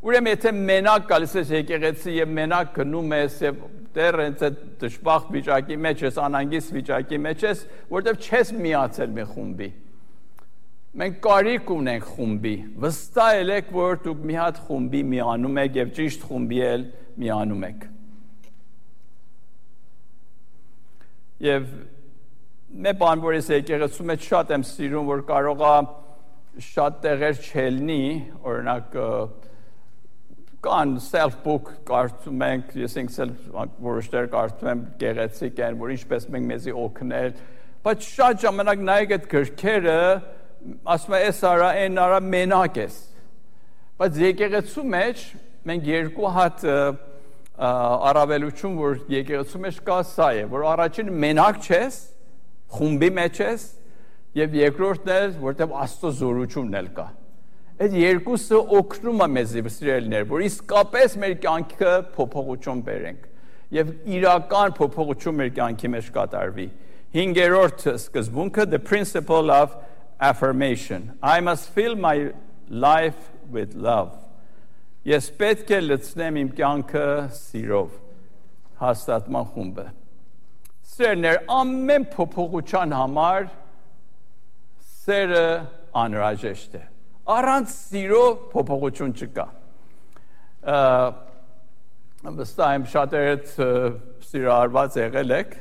[SPEAKER 1] Ուրեմն եթե մենակ գալիս ես եկեղեցի եւ մենակ գնում ես եւ դեռ այդ դժբախտ վիճակի մեջ ես, անհանգիստ վիճակի մեջ ես, որտեվ չես միացել մի խումբի։ Մենք կարիք ունենք խումբի։ Վստահ եք, որ դուք մի հատ խումբի միանում եք եւ ճիշտ խումբի էլ միանում եք։ Եվ մի բան, որ ես եկեղեցու մեջ շատ եմ սիրում, որ կարող է շատ տեղեր չելնի, օրինակ կան self-book կարդում ենք, ես ինքս էլ որոշներ կարդում եմ գեղեցիկ են, որ ինչպես մենք մեզի օգնել, բայց շատ ժամանակ նայեք այդ գրքերը, ասում է էս արա, այն արա մենակ ես, բայց եկեղեցու մեջ մենք երկու հատ առավելություն, որ եկեղեցու մեջ կա սա է, որ առաջին մենակ չես, խումբի մեջ ես, եւ երկրորդն է, որտեղ Աստծո զորությունն էլ կա։ Այդ երկուսը օգնում է մեզի սիրելիներ, որ իսկապես մեր կյանքը փոփոխություն բերենք եւ իրական փոփոխություն մեր կյանքի մեջ կատարվի։ 5-րդ սկզբունքը, the principle of affirmation. I must fill my life with love. Ես պետք է լցնեմ իմ կյանքը սիրով։ Հաստատման խումբը։ Սերներ ամեն փոփոխության համար սերը անհրաժեշտ է։ Առանց սիրո փոփոխություն չկա։ Վստահ եմ շատերդ սիրահարված եղել եք,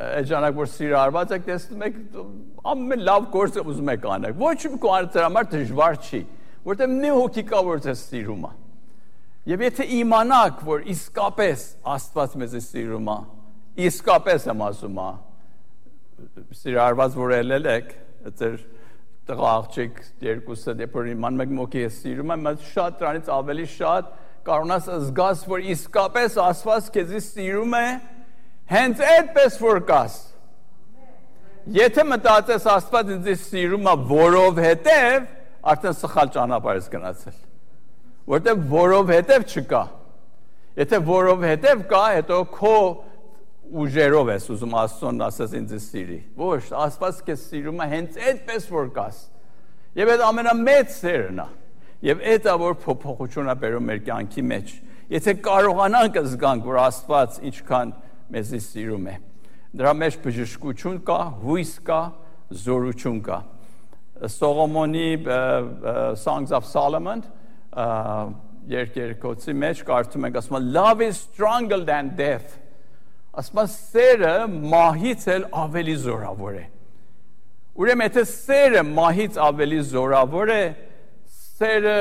[SPEAKER 1] այդ ժամանակ որ սիրահարված եք, տեսնում եք ամեն լավ գործը ուզում եք անել։ Ոչ մի կողմից դրա համար դժվար չի, որտեղ մի հոգի կա, որ ձեզ սիրում է։ Եվ եթե իմանաք, որ իսկապես Աստված մեզ սիրում է, իսկապես եմ ասում, սիրահարված որ ելել եք, ձեր տղա աղջիկ երկուսը դեպոր իմանում եք մոքի ես սիրում եմ, շատ դրանից ավելի շատ կարողանաս զգաս, որ իսկապես Աստված քեզի սիրում է, հենց այդպես որ կաս։ Եթե մտածես Աստված ինձ սիրում է որովհետև, արդեն սխալ ճանապարհ ես գնացել։ Որտեղ որովհետև չկա։ Եթե որովհետև կա, հետո քո ուժերով ես ուզում Աստծուն ասես ինձ սիրի։ Ոչ, Աստված քեզ սիրում է հենց այդպես որ կաս։ Եվ այդ ամենամեծ սերն է։ Եվ այդ է որ փոփոխություն է բերում մեր կյանքի մեջ։ Եթե կարողանանք զգանք, որ Աստված ինչքան մեզ սիրում է։ Դրա մեջ բժշկություն կա, հույս կա, զորություն կա։ Սողոմոնի Songs of Solomon երկերկոցի մեջ կարդում ենք, ասում է love is stronger than death։ Ասում է սերը մահից էլ ավելի զորավոր է։ Ուրեմն եթե սերը մահից ավելի զորավոր է, սերը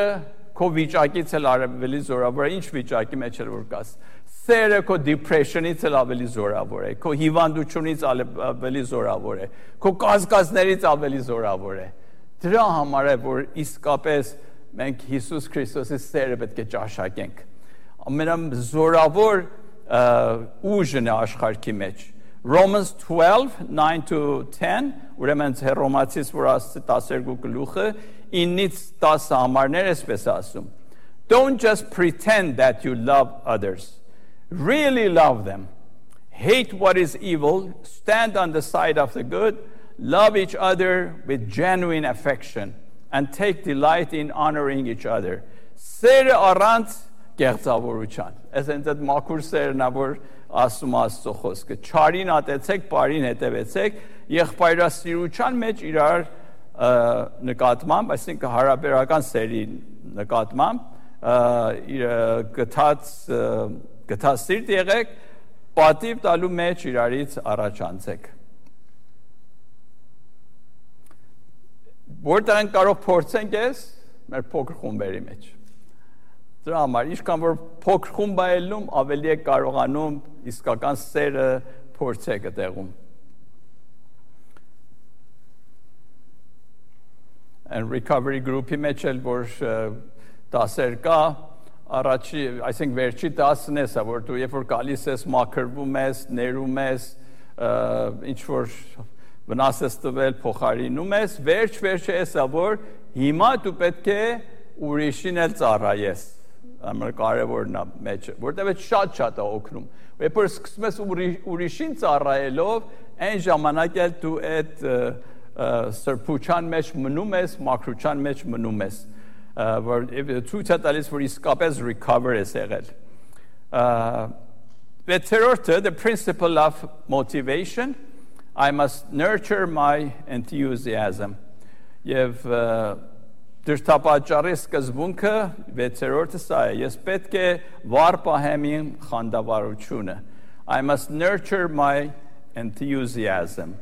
[SPEAKER 1] քո վիճակից էլ ավելի զորավոր է, ինչ վիճակի մեջ էլ որ կաս։ Սերը քո depression-ից էլ ավելի զորավոր է, քո հիվանդությունից ավելի զորավոր է, քո կասկածներից ավելի զորավոր է։ Դրա համար է որ իսկապես մենք Հիսուս Քրիստոսի սերը պետք է ճաշակենք։ Ամենազորավոր ուժն է աշխարհի մեջ։ Romans 12:9-10, ուրեմն Հռոմացիս որ 12 գլուխը 9-ից 10 համարներ էսպես ասում։ Don't just pretend that you love others. Really love them. Hate what is evil. Stand on the side of the good. Love each other with genuine affection. And take delight in honoring each other. Սերը առանց կեղծավորության։ Այսինքն այդ մաքուր սերն է, որ ասում Աստծո խոսքը։ Չարին ատեցեք, բարին հետևեցեք, եղբայրասիրության մեջ իրար նկատմամբ, այսինքն հարաբերական սերի նկատմամբ գթած սիրտ եղեք, պատիվ տալու մեջ իրարից առաջանցեք։ Որտեղ են կարող փորձենք ես մեր փոքր խումբերի մեջ։ Դրա համար ինչքան որ փոքր խումբ է ելնում, ավելի է կարողանում իսկական սերը փորձեք այդտեղում։ And recovery group-ի մեջ էլ որ դասեր կա, առաջի, այսինքն վերջի դասն է սա, որ դու երբ որ գալիս ես, մաքրվում ես, ներում ես, ինչ որ վնաս ես տվել, փոխարինում ես, վերջ է սա, որ հիմա դու պետք է ուրիշին էլ ծառայես, ամենակարևորն է մեջը, որտեղ շատ է օգնում, երբ որ սկսում ես ուրիշին ծառայելով, այն ժամանակ էլ դու այդ սրբության մեջ մնում ես, մաքրության մեջ մնում ես, որ ցույց է տալիս, որ իսկապես recover ես եղել։ Վեցերորդը, the principle of motivation, I must nurture my enthusiasm. Եվ դրդապատճառի սկզբունքը վեցերորդը սա է, ես պետք է վառ պահեմ իմ խանդավառությունը։ I must nurture my enthusiasm.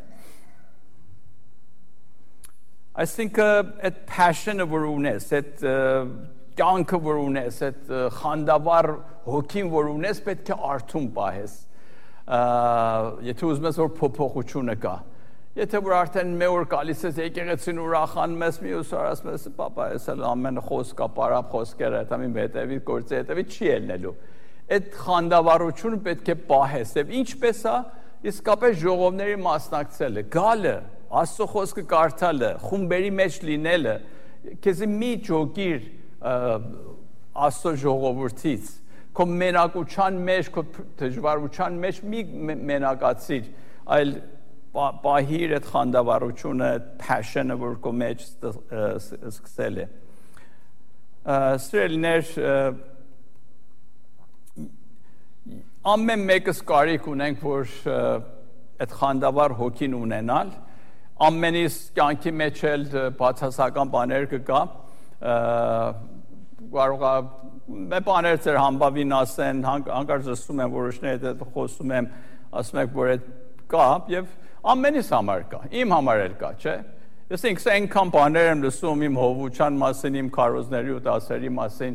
[SPEAKER 1] Այսինքն այդ passion-ը որ ունես, այդ կյանքը որ ունես, այդ խանդավառ հոգին որ ունես, պետք է արթուն պահես։ Եթե ուզում ես որ փոփոխությունը կա, եթե որ արդեն մի օր գալիս ես եկեղեցին ուրախանում ես, մյուս օր ասում ես, պապա, ես էլ ամեն խոսքա, պարապ խոսքերը, դա մի հետևի գործի հետևի չի ելնելու։ Այդ խանդավառությունը պետք է պահես, եւ ինչպես է, իսկապես ժողովների մասնակցելը, գալը, Աստծո խոսքը կարդալը, խումբերի մեջ լինելը, քեզ մի ջոգիր Աստծո ժողովրդից, քո մենակության մեջ, քո դժվարության մեջ մի մենակացիր, այլ պահիր այդ խանդավառությունը, այդ passion-ը, որ քո մեջ սկսել է։ Սիրելիներ, ամեն մեկս կարիք ունենք, որ այդ խանդավառ հոգին ունենալ, ամենից կյանքի մեջ էլ բացասական բաներ կգա, կարող է մեր բաներ ծեր համբավին ասեն, հանկարծ ասում եմ, որոշներ հետ խոսում եմ, ասում եք, որ այդ կա, և ամենից համար կա, իմ համար էլ կա, չէ։ Ես ինքս այնքան բաներ եմ լսում իմ հովության մասին, իմ քարոզների ու դասերի մասին,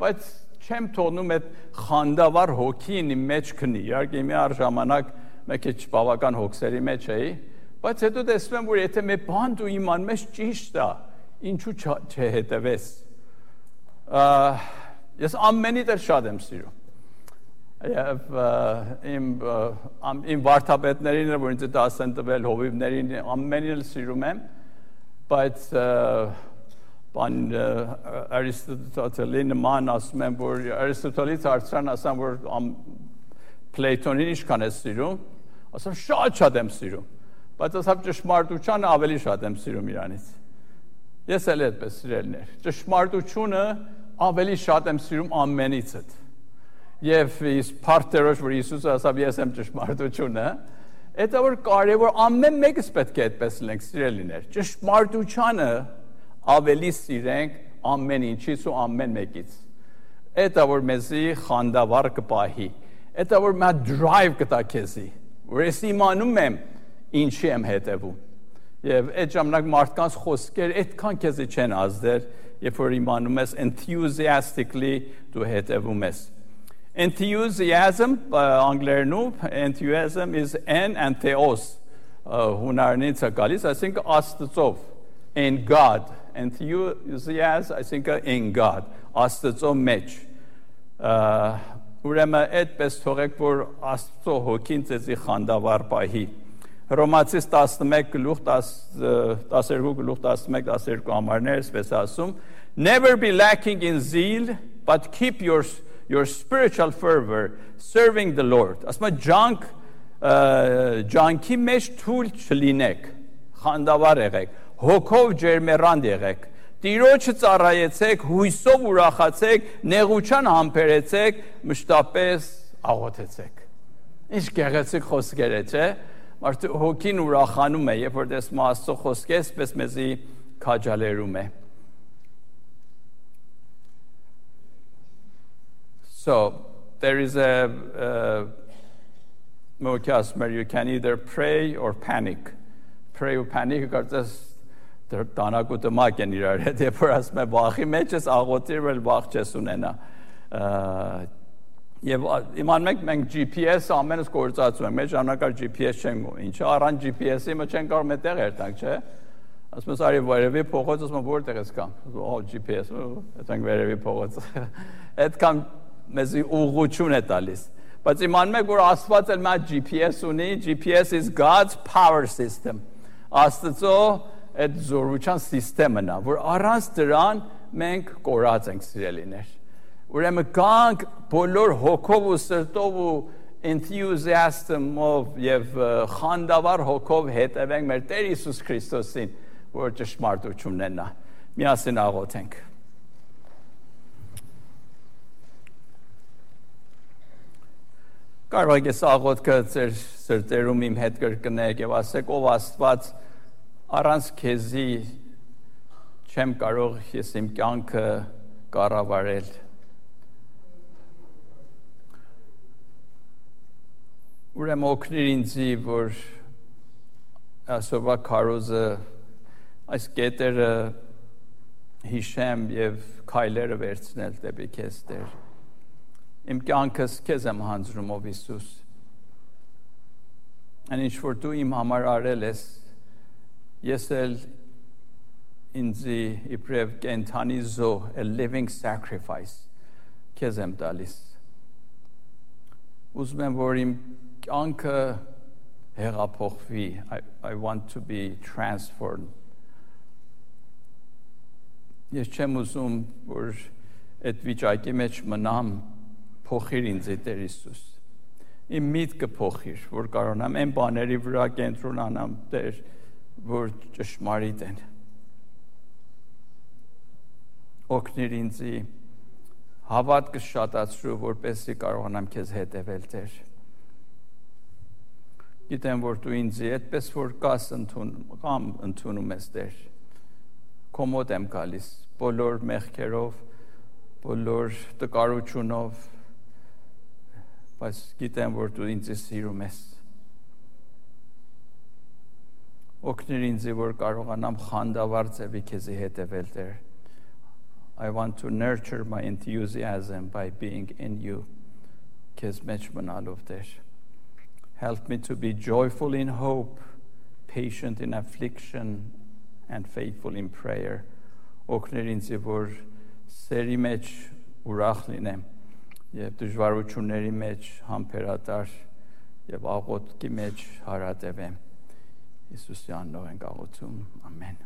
[SPEAKER 1] բայց չեմ թողնում այդ խանդավառ հոգին իմ մեջ քնի, իհարկե մի առ ժամանակ մեկ է բավական հոգսերի մեջ էի, բայց հետո տեսնում եմ, որ եթե մի բան դու իմանում ես ճիշտ է, ինչու չհետևես։ Ես ամենից էլ շատ եմ սիրում։ Եվ իմ վարդապետներին, որ ինձ դաս են տվել, հովիվներին, ամենին էլ սիրում եմ, բայց բան Արիստոտելի նման ասում եմ, որ Արիստոտելից հարցրան ասեմ, որ Պլեյտոնին ինչքան ես սիրում, ասեմ շատ եմ սիրում, բայց ասեմ ճշմարտությանը ավելի շատ եմ սիրում իրանից։ Ես էլ այդպես սիրելներ, ճշմարտությունը ավելի շատ եմ սիրում ամենիցդ։ Եվ փառքերով որ Հիսուսը ասավ ես եմ ճշմարտությունը, դա որ կարևոր ամեն մեկս պետք է այդպես լինենք սիրելիներ։ Ճշմարտությանը ավելի սիրենք ամեն ինչից ու ամեն մեկից։ Դա որ մեզի խանդավառ կպահի, դա որ մա drive կտա քեզի, որ ես իմանում եմ ինչի եմ հետևում։ Եվ այդ ժամանակ մարդկանց խոսքեր այդքան քեզի չեն ազդել, երբ որ իմանում ես enthusiastically դու հետևում ես։ Enthusiasm, enthusiasm is en and theos, հունարենից է գալիս, այսինքն Աստծով, in God, enthusiasm, այսինքն in God, Աստծո մեջ, ուրեմն այդպես թողեք, որ Աստծո հոգին ձեզի խանդավառ պահի, Հռոմացիս 11:12 համարներ, այսպես ասում, never be lacking in zeal, but keep your spiritual fervor serving the Lord. Ասում է ջանքի մեջ թույլ չլինեք, խանդավառ եղեք, հոգով ջերմեռանդ եղեք, Տիրոջը ծառայեցեք, հույսով ուրախացեք, նեղության համբերեցեք, մշտապես աղոթեցեք։ Ինչ գեղեցիկ խոսքեր է, չէ՞։ Մարդու հոգին ուրախանում է, երբ որ տեսնում է Աստծո խոսքեր, պես մեզի քաջալերում է։ So, there is you can either pray or panic. Pray or panic, կարծես տանակուտը մակ են իրար հետ, երբ որ ասում է վախի մեջ ես աղոթիր, էլ վախ չես ունենա։ Եվ իմանում եք մենք GPS ամենս գործածում ենք, մեր ժամանակար GPS չենք, ինչը առանց GPS-ի մը չեն կարող մետեղ երտանք, չէ։ Ասում ես արի վերևի փողոց, ասում եմ որտեղ ես կամ։ GPS, այդտեղ վերևի փողոց։ Այդքան մեզի ուղղություն է տալիս։ Բայց իմանում եք որ Աստված էլ մա GPS ունի, GPS is God's power system։ Աստծո այդ զորության սիստեմն է, որ առանց դրան մենք կորած ենք սիրելիներ։ Ուրեմն կանք բոլոր հոգով ու սրտով ու enthusiasm-ով եւ խանդավառ հոգով հետևենք մեր Տեր Հիսուս Քրիստոսին, որ ճշմարտությունն է նա։ Միասին աղոթենք։ Կարող եք աղոթքը ձեր սրտերում իմ հետ կրկնեք եւ ասեք ով Աստված առանց քեզի չեմ կարող ես իմ կյանքը կառավարել։ Ուրեմն օգնիր ինձի, որ այսօրվա քարոզը այս կետերը հիշեմ եւ քայլերը վերցնել դեպի քեզ Տեր։ Իմ կյանքս քեզ եմ հանձնում ով Հիսուս։ Այն ինչ որ դու իմ համար արել ես, ես էլ ինձի իբրև կենթանի զոհ, a living sacrifice, քեզ եմ տալիս։ Ուզում եմ, որ իմ կյանքը հեղափոխվի, I want to be transformed։ Ես չեմ ուզում, որ այդ վիճակի մեջ մնամ, փոխիր ինձ Տեր Հիսուս։ Իմ միտքը փոխիր, որ կարողանամ այն բաների վրա կենտրոնանամ, Տեր, որ ճշմարիտ են։ Օգնիր ինձի հավատքը շատացրու, որպեսզի կարողանամ քեզ հետևել, Տեր։ Գիտեմ, որ դու ինձի այդպես որ կաս ընդունում ես, Տեր։ Քո մոտ եմ գալիս, բոլոր մեղքերով, բոլոր տկարությունով, բայց գիտեմ, որ դու ինձ սիրում ես։ Օգնիր ինձ, որ կարողանամ խանդավառ ձևի քեզի հետևել, Տեր։ I want to nurture my enthusiasm by being in you, քեզ մեջ մնալով, Տեր։ Help me to be joyful in hope, patient in affliction, and faithful in prayer. Օգնիր ինձ, որ սերի մեջ ուրախ լինեմ, եւ դժվարությունների մեջ համբերատար եւ աղոթքի մեջ հարատևեմ։ Հիսուսի անունով ենք աղոթում։ Ամեն։